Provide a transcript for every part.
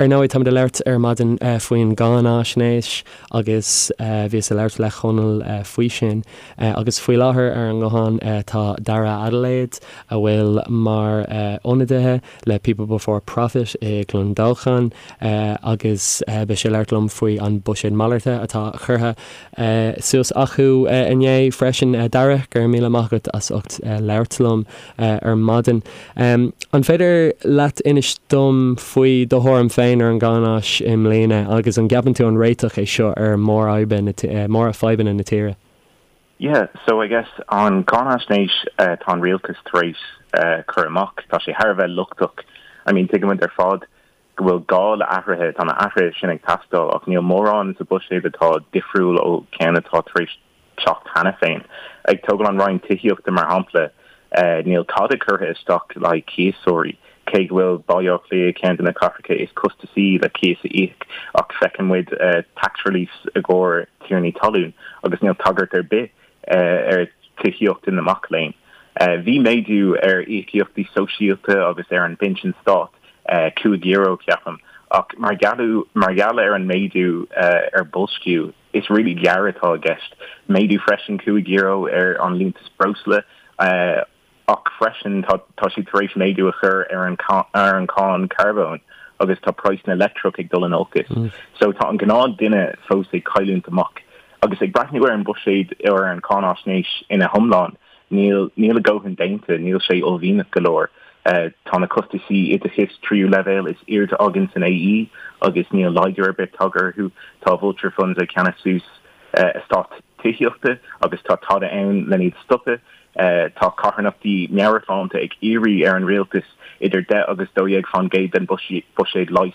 Ar ndóigh, táimid ag labhairt ar maidin faoin gcáinaisnéis agus bhíos ag labhairt le Conall faoi sin. Agus faoi láthair ar an nguthán tá Dara Adelaide, a bhfuil mar ionadaithe le People Before Profit i gClondalchan agus beidh sé ag labhairt liom faoi an buiséad malairte atá curtha suas acu inné freisin. Dara, go raibh míle maith agat as ucht labhairt liom ar maidin. An féidir leat inis dom faoi do thuairim féin ar an gcáináis i mbliana agus an gceapann tú an réiteach é seo ar mhórfhadhbanna na tíre? Yeah, so I guess an cáinaisnéis atá an rialtas tar éis cur amach, tá sé thar a bheith lochtach. I mean tuigimid ar fad go bhfuil gá le athruithe, tá na athruithe sin ag teastáil ach níl mórán sa buiséad atá difriúil ó ceann atá tar éis teacht cheana féin. Ag tógáil an Roinn Tithíochta mar shampla, níl tada curtha isteach le haghaidh cíosóirí, cé go bhfuil Baile Átha Cliath ceann de na cathracha is costasaí le cíos a íoc, ach feiceann muid tax reliefs i gcomhair tiarnaí talún agus níl tagairt ar bith ar tithíocht na mac léinn. Bhí méadú ar íocaíochtaí sóisialta agus ar an bpinsean stáit, €5 ceapaim, ach mar gheall ar an méadú ar boilsciú, is really gearr atá i gceist. Méadú freisin €5 ar an liúntas breosla ach freisin tá siad tar éis méadú a chur ar an ar an cáin carbóin agus tá praghas na leictreach ag dul in olcas. So tá an gnáth duine fós ag cailliúint amach. Agus ag breathnú ar an buiséad ar an cáinaisnéis ina hiomlán, Níl, níl a dhóthain déanta, níl sé uaillmhianach go leor. Tá na costaisí oideachais tríú leibhéal is airde againn san AE agus níl laghdú ar bith tagtha orthu. Tá vulture funds ag ceannach suas eastáit tithíochta agus tá tada ann lena iad stopadh. Tá carthanachtaí meabhairshláinte ag iarraidh ar an rialtas idir 10 agus 12 fán gcéad den buiséad leighis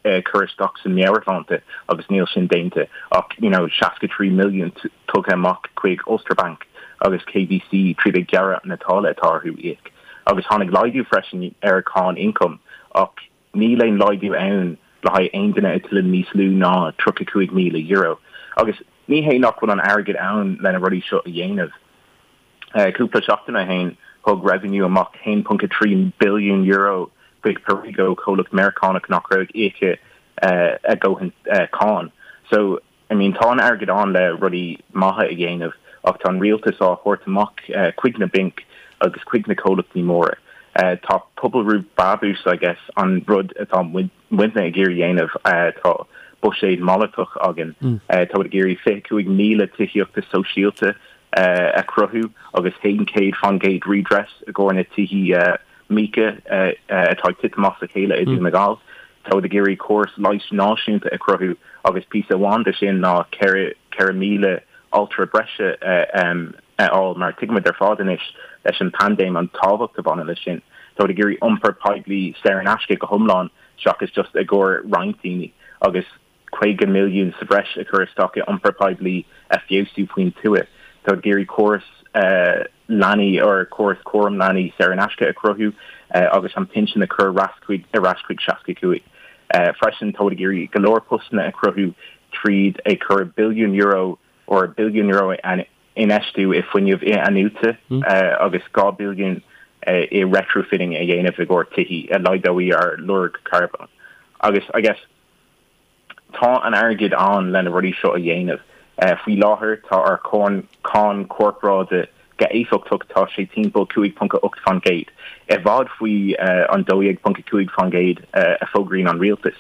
a chur isteach san meabhairshláinte agus níl sin déanta ach you know 63 milliún tugtha amach chuig Ulster Bank agus KBC tríd ag gearradh na táille atá orthu íoc. Agus tháinig laghdú freisin ar cháin ioncaim ach níl aon laghdú ann le haghaidh aon duine a tuilleann níos lú ná €35,000. Agus ní hé nach bhfuil an airgead ann lena rudaí seo a dhéanamh. Cúpla seachtain ó shin, thug Revenue amach €1.3 billiún chuig Perrigo, comhlacht Meiriceánach nach raibh ag íoc a dhóthain cáin. So, I mean, tá an airgead ann le rudaí maithe a dhéanamh ach tá an rialtas á thabhairt amach chuig na bainc agus chuig na comhlachtaí móra. Tá pobal roimh brabús, I guess, an rud atá muidne ag iarraidh dhéanamh. Tá buiséad malartach againn. Tá muid ag iarraidh 25,000 tithíochta sóisialta a chruthú agus 100% redress i gcomhair na tithí míoca atá ag titim as a chéile i Dún na nGall. Tá muid ag iarraidh córas leighis náisiúnta a chruthú agus píosa amháin de sin ná 4,000 altra breise a fháil mar tuigimid ar fad anois leis an bpaindéim an tábhacht a bhaineann leis sin. Tá muid ag iarraidh iompar poiblí saor in aisce go hiomlán seachas just i gcomhair roinnt daoine agus 50 milliún sa bhreis a chur isteach i iompar poiblí a feabhsú faoin tuath. Tá ag iarraidh córas leanaí or córas cúram leanaí saor in aisce a chruthú agus an pinsean a chur ar ais chuig ar ais chuig 65. Freisin tá ag iarraidh go leor postanna a chruthú tríd ag cur billiún euro or billiún euro infheistiú i fuinneamh in-athnuaite agus 2 billiún i retrofitting a dhéanamh i gcomhair tithí a laghdóidh ár lorg carbóin. Agus I guess tá an airgead ann lena rudaí seo a dhéanamh. Faoi láthair tá ár cáin corparáide go éifeachtach tá sé timpeall 5.8%, i bhfad faoi an 12.5% a fógraíonn an rialtas.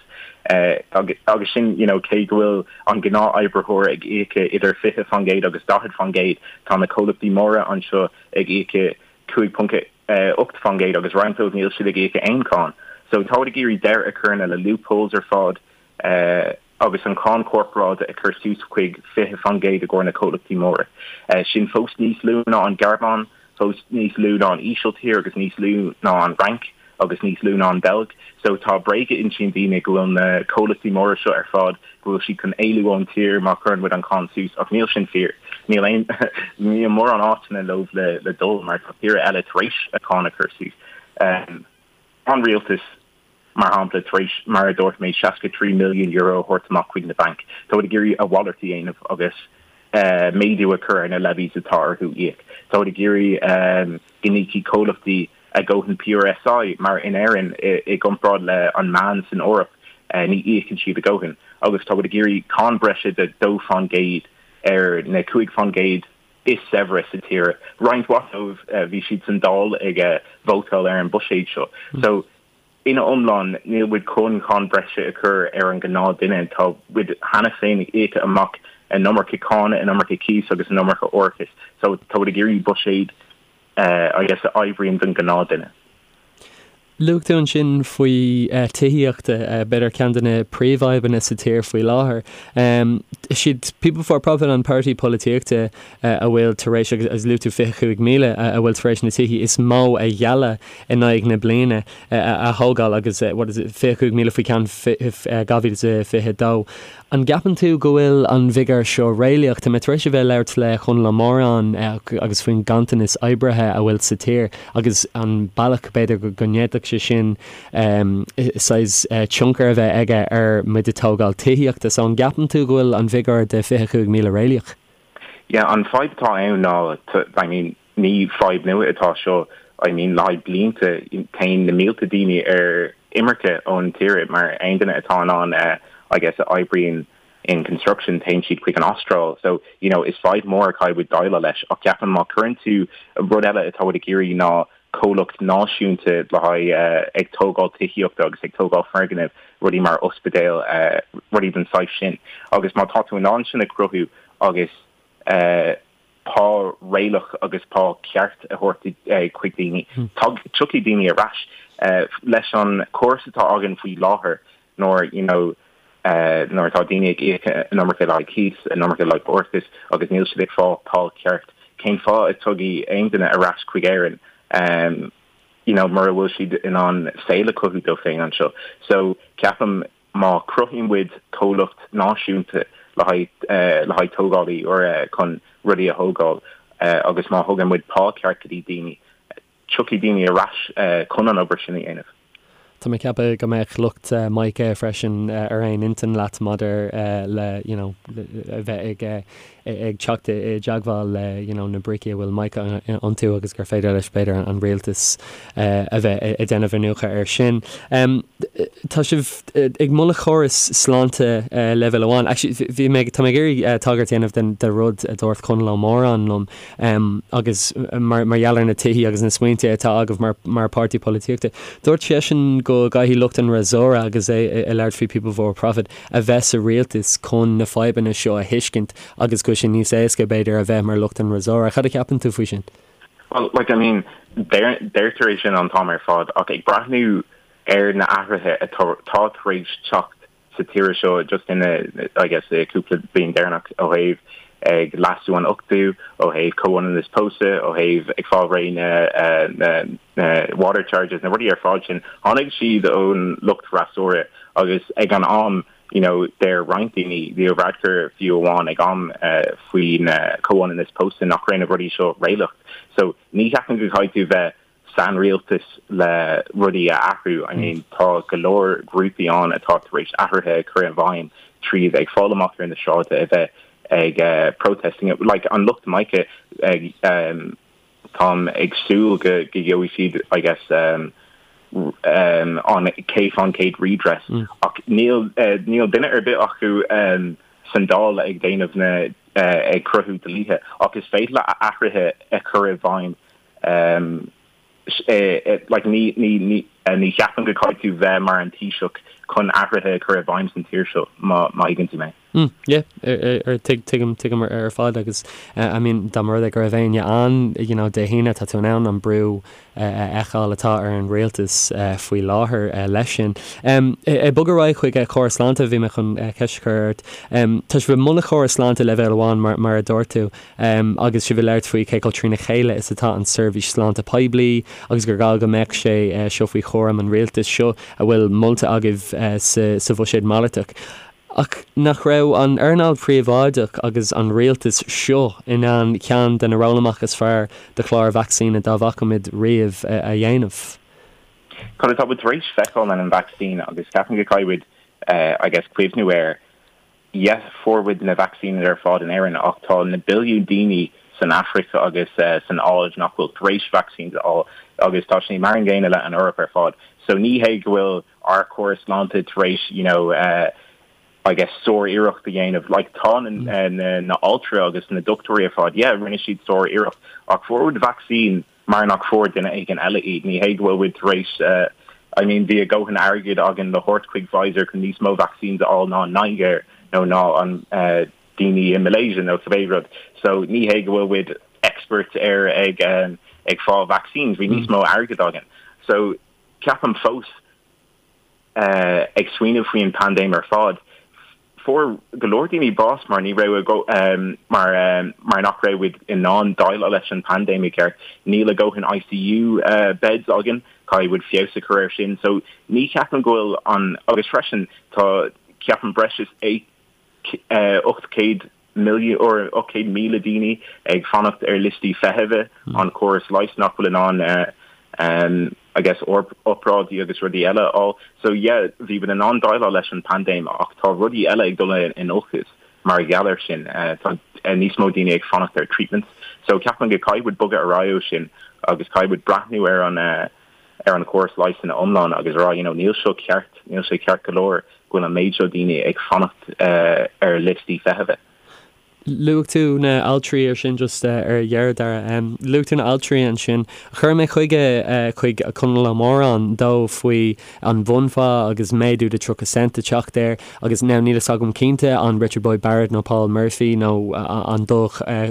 Agus sin you know cé go bhfuil an gnáth-oibritheoir ag íoc idir 20% agus 40%, tá na comhlachtaí móra anseo ag íoc 5.8% agus roinnt dóibh níl siad ag íoc aon cháin. So táid ag iarraidh deireadh a chur na le loopholes ar fad agus an cáin corparáide a chur suas chuig 20% i gcomhair na comhlachtaí móra. Sin fós níos lú ná an Ghearmáin, fós níos lú ná an Ísiltír agus níos lú ná an Fhrainc agus níos lú ná an Bheilg. So tá bréag a insíonn daoine go bhfuil na comhlachtaí móra seo ar fad, go bhfuil siad chun éalú ón tír má chuireann muid an cáin suas ach níl sin fíor. Níl aon níl mórán áiteanna leo le le dul mar tá tíortha eile tar éis a cáin a chur suas. Tá an rialtas mar shampla, tar éis, mar a dúirt mé, €63 milliún a thabhairt amach chuig na bainc. Tá siad ag iarraidh a mhalairt a dhéanamh agus méadú a chur ar na levies atá orthu íoc. Tá siad ag iarraidh go n-íocfaidh comhlachtaí a dhóthain PRSI, mar in Éirinn, i gcomparáid le an meán san Eoraip. Ní íocann siad a ndóthain agus tá muid ag iarraidh cáin breise de 2% ar na 5% is saibhre sa tír. Roinnt mhaith dóibh, bhí siad san Dáil ag vótáil ar an buiséad seo. So, ina iomlán, níl muid chun cáin breise a chur ar an gnáth duine. Tá muid cheana féin ag íoca amach an iomarca cáin, an iomarca cíos agus an iomarca árachais. So, tá muid ag iarraidh buiséad, I guess, a oibríonn don gnáth duine. Luaigh tú ansin faoi tithíocht, b'fhéidir ceann de na príomhfhadhbanna sa tír faoi láthair. Is iad People Before Profit an páirtí polaitíochta a bhfuil tar éis, agus luaigh tú 25,000, a bhfuil tar éis na tithí is mó a ghealladh in aghaidh na bliana a thógáil agus what is it, 25,000 faoi cheann 2022. An gceapann tú go bhfuil an bhfigiúr seo réalaíoch? Tá mé tar éis a bheith ag labhairt le Conall Ó Móráin agus faoin ganntanas oibrithe a bhfuil sa tír agus an bealach b'fhéidir go ndéanfadh sé sin saghas tionchar a bheith aige ar muid ag tógáil tithíochta. So an gceapann tú go bhfuil an bhfigiúr de 25,000 réalaíoch? Yeah, an fadhb atá ann ná, I mean, ní fadhb nua atá seo, I mean, le haghaidh blianta téann na mílte daoine ar imirce ón tír mar aon duine atá in ann, I guess, a oibríonn in construction, téann siad chuig an Astráil. So, you know, is fadhb mór a caithfidh muid déileáil leis ach ceapaim má cuireann tú, rud eile atá muid ag iarraidh ná comhlacht náisiúnta le haghaidh ag tógáil tithíochta agus ag tógáil foirgnimh, rudaí mar ospidéil, rudaí den saghas sin. Agus má tá tú in ann sin a chruthú agus pá réalaíoch agus pá ceart a thabhairt chuig daoine, tiocfaidh daoine ar ais. Leis an chóras atá againn faoi láthair, nuair you know nuair atá daoine ag íoc an iomarca le haghaidh cíos, an iomarca le haghaidh árachas agus níl siad ag fáil pá ceart, cén fáth a dtiocfaidh aon duine ar ais chuig Éirinn you know mura bhfuil siad in ann saol a chothú dóibh féin anseo. So ceapaim má chruthaíonn muid comhlacht náisiúnta le haghaidh le haghaidh tógálaí úra chun rudaí a thógáil agus má thugann muid pá ceart go dtí daoine, tiocfaidh daoine ar ais chun an obair sin a dhéanamh. Tá mé ag ceapadh go mbeadh lucht Mica freisin ar aon intinn leat maidir le you know a bheith ag ag teacht i dteagmháil le you know na brící a bhfuil Mica iontu agus gur féidir leis b'fhéidir an rialtas a bheith ag déanamh iniúchadh air sin. Tá sibh ag moladh córas sláinte leibhéal amháin. Actually bhí mé tá mé ag iarraidh tagairt a dhéanamh den de rud a dúirt Conall Ó Móráin liom. Agus mar gheall ar na tithí agus na smaointe atá agaibh mar pháirtí polaitíochta, dúirt seisean go gcaithfidh lucht an fhreasúra, agus é ag labhairt faoi People Before Profit, a bheith sa rialtas chun na fadhbanna seo a thuiscint agus go bhfuil sé níos éasca, b'fhéidir, a bheith mar lucht an fhreasúra. Cad a cheapann tú faoi sin? Well, like, I mean, deirtear é sin an t-am ar fad ach ag breathnú ar na athruithe atá tar éis teacht sa tír seo just in I guess cúpla bliain deireanach ó thaobh ag leasú an ochtú, ó thaobh comhionannas pósadh, ó thaobh ag fáil réidh na na water charges, na rudaí ar fad sin, tháinig siad ón lucht freasúra agus ag an am you know deir roinnt daoine, Leo Varadkar fiú amháin ag am faoin comhionannas pósadh nach raibh na rudaí seo réalaíoch. So ní cheapaim go gcaithfidh tú bheith san rialtas le rudaí a athrú. I mean tá go leor grúpaí ann atá tar éis athruithe a chur i bhfeidhm tríd ag fáil amach ar na sráide a bheith ag protesting. Like an lucht Mica ag táim ag súil go go gheobhaidh siad I guess um, um, an 100% redress mm. ach níl uh, níl duine ar bith acu um, san Dáil ag déanamh na uh, ag cruthú dlíthe ach is féidir le athruithe a chur i bhfeidhm Like ní ní ní ní cheapaim go gcaithfidh tú bheith mar an Taoiseach chun athruithe a chur i bhfeidhm san tír seo, má má thuigeann tú mé. Mm, yeah, ar tuig tuigim tuigim ar fad agus I mean dá mba rud é go raibh éinne ann you know Dé hAoine tá tú in ann an brú a fheiceáil atá ar an rialtas faoi láthair leis sin. Ag bogadh ar aghaidh chuig córas sláinte bhí mé chun ceist a chur ort. Tá sibh ag moladh córas sláinte leibhéal amháin mar mar a dúirt tú. Agus sibh ag labhairt faoi cé chomh trína chéile is atá an seirbhís sláinte poiblí agus gur gá go mbeadh sé seo faoi chúram an rialtais seo a bhfuil molta agaibh sa bhuiséad malartach. Ach nach raibh an earnáil phríobháideach agus an rialtas seo in ann ceann de na rollamach is fearr de chláir vacsaíne dá bhfaca muid riamh a dhéanamh? Cad atá muid tar éis feiceáil leis an vacsaín agus ceapaim go gcaithfidh muid I guess cuimhniú air Yes, fuair muid na vacsaíní ar fad in Éirinn ach tá na billiún daoine san Afraic agus san Áis nach bhfuil tar éis vaccines a fháil agus tá sé mar an gcéanna le an Eoraip ar fad. So ní hé go bhfuil ár córas sláinte tar éis you know I guess sár-iarracht a dhéanamh. Like tá na na altraí agus na dochtúirí ar fad, yeah, rinne siad sár-iarracht ach fuair muid vacsaín mar nach fuair duine éigin eile iad. Ní hé go bhfuil muid tar éis I mean bhí a dhóthain airgid againn le thabhairt chuig Pfizer chun níos mó vaccines a fháil ná an Nigéir nó ná an daoine i Malaysia nó cibé rud. So ní hé go bhfuil muid experts ar ag ag fáil vaccines, bhí níos mó airgid againn. So ceapaim fós ag smaoineamh faoi an paindéim ar fad, fuair go leor daoine bás mar ní raibh a mar mar nach raibh muid in ann déileáil leis an paindéim i gceart. Níl a dhóthain ICU beds againn, caithfidh muid feabhas a chur air sin. So ní cheapaim go bhfuil an agus freisin tá ceapaim breis is 800 milliún or 800,000 daoine ag fanacht ar liostaí feithimhe an córas leighis nach bhfuil in ann I guess obráidí agus rudaí eile a fháil. So yeah, bhí muid in ann déileáil leis an paindéim ach tá rudaí eile ag dul in olcas mar gheall air sin. Tá níos mó daoine ag fanacht ar treatments. So ceapaim go caithfidh muid bogadh ar aghaidh ó sin agus caithfidh muid breathnú ar an ar an chóras leighis ina iomlán agus rá you know níl seo ceart, níl sé ceart go leor go bhfuil an méid seo daoine ag fanacht ar liostaí feithimhe. Luaigh tú na altraí ansin just ar dheireadh, Dara. Luaigh tú na altraí ansin. Chuir mé chuige chuig Conall Ó Móráin dó faoi an bhunphá agus méadú de 30 cent a teacht air agus now níl fhios agam cinnte an Richard Boyd Barrett nó Paul Murphy nó an dá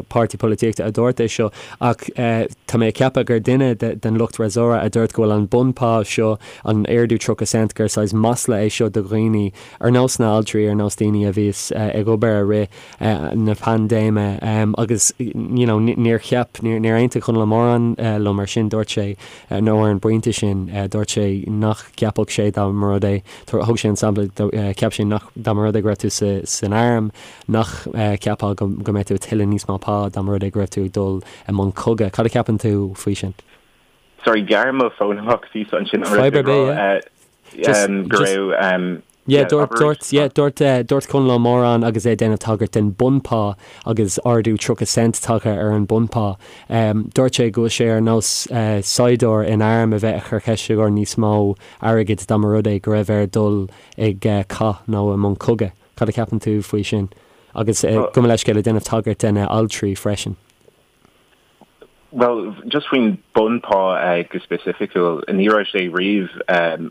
páirtí polaitíochta a dúirt é seo ach tá mé ag ceapadh gur duine den lucht fhreasúra a dúirt go bhfuil an bunphá seo, an ardú 30 cent, gur saghas masla é seo do dhaoine ar nós na altraí, ar nós daoine a bhíos ag obair i rith na paindéime agus you know níor cheap, níor aontaigh Conall Ó Móráin liom ar sin, dúirt sé, nó ar an bpointe sin, dúirt sé nach gceapfadh sé dá mba rud é, thug sé an sampla, cheap sé nach, dá mba rud é go raibh tú san arm, nach gceapfá go mbeadh tú ag tuilleadh níos mó pá dá mba rud é go raibh tú ag dul i mbun cogaidh. Cad a cheapann tú faoi sin? Sorry, ghearr mo fón amach píosa ansin an raibh tú ag rá go raibh Yeah, dúirt, dúirt, yeah, dúirt, dúirt Conall Ó Móráin agus é ag déanamh tagairt den bunphá agus ardú 30 cent tagtha ar an bunphá. Dúirt sé go bhfuil sé ar nós saighdiúir in arm a bheith ag cur ceiste ar níos mó airgid dá mba rud é go raibh air dul ag cath nó i mbun cogaidh. Cad a cheapann tú faoi sin? Agus gabh mo leithscéal ag déanamh tagairt de na altraí freisin. Bhuel, just faoin bunphá go specificiúil, ní raibh sé riamh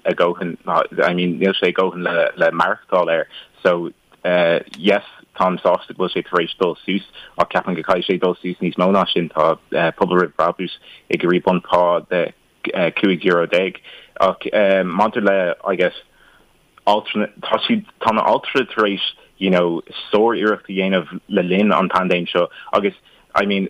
a dhóthain, I mean níl sé a dhóthain le le maireachtáil air. So yes, táim sásta go bhfuil sé tar éis dul suas ach ceapaim go caithfidh sé dul suas níos mó ná sin. Tá Pobal Roimh Brabús ag iarraidh bunphá de 15 euro. Ach maidir le, I guess, altra, tá siad, tá na altraí tar éis, you know, sár-iarracht a dhéanamh le linn an paindéim seo agus, I mean,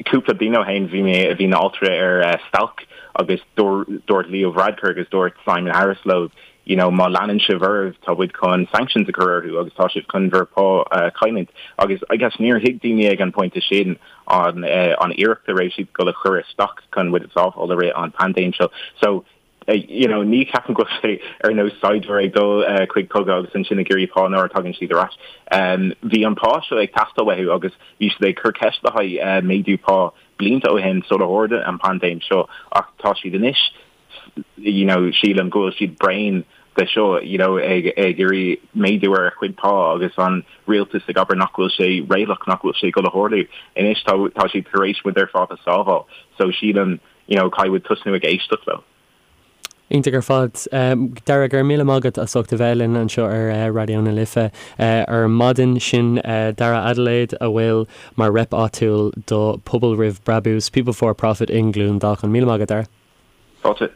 cúpla bliain ó shin bhí mé, bhí na altraí ar stailc agus dúirt Leo Varadkar agus dúirt Simon Harris leo, you know, má leanann sibh oraibh tá muid chun sanctions a chur orthu agus tá sibh chun bhur pá a chailliúint. Agus I guess níor thuig daoine ag an pointe sin an an iarracht a raibh siad ag dul a chur isteach chun muid a sábháil i rith an paindéim seo. So, you know, ní cheapaim go bhfuil sé ar nós saighdiúir ag dul chuig cogadh agus ansin ag iarraidh pá nuair a tagann siad ar ais. Bhí an pá seo ag teastáil uathu agus bhí siad ag cur ceist le haghaidh méadú pá blianta ó shin sular tharla an paindéim seo ach tá siad anois, you know, sílim go bhfuil siad bréan de seo, you know, ag ag iarraidh méadú ar a chuid pá agus an rialtas ag abair nach bhfuil sé réalaíoch, nach bhfuil sé ag dul a tharlú. Anois tá tá siad tar éis muid ar fad a sábháil so sílim you know, caithfidh muid tosnú ag éisteacht leo. Iontach ar fad. Dara, go raibh míle maith agat as ucht a bheith linn anseo ar Raidió na Life ar maidin. Sin Dara Adelaide a bhfuil mar rep áitiúil do Pobal Roimh Brabús, People 4 Profit i nGleann Dácháin. Míle maith agat, Dara. Fáilte.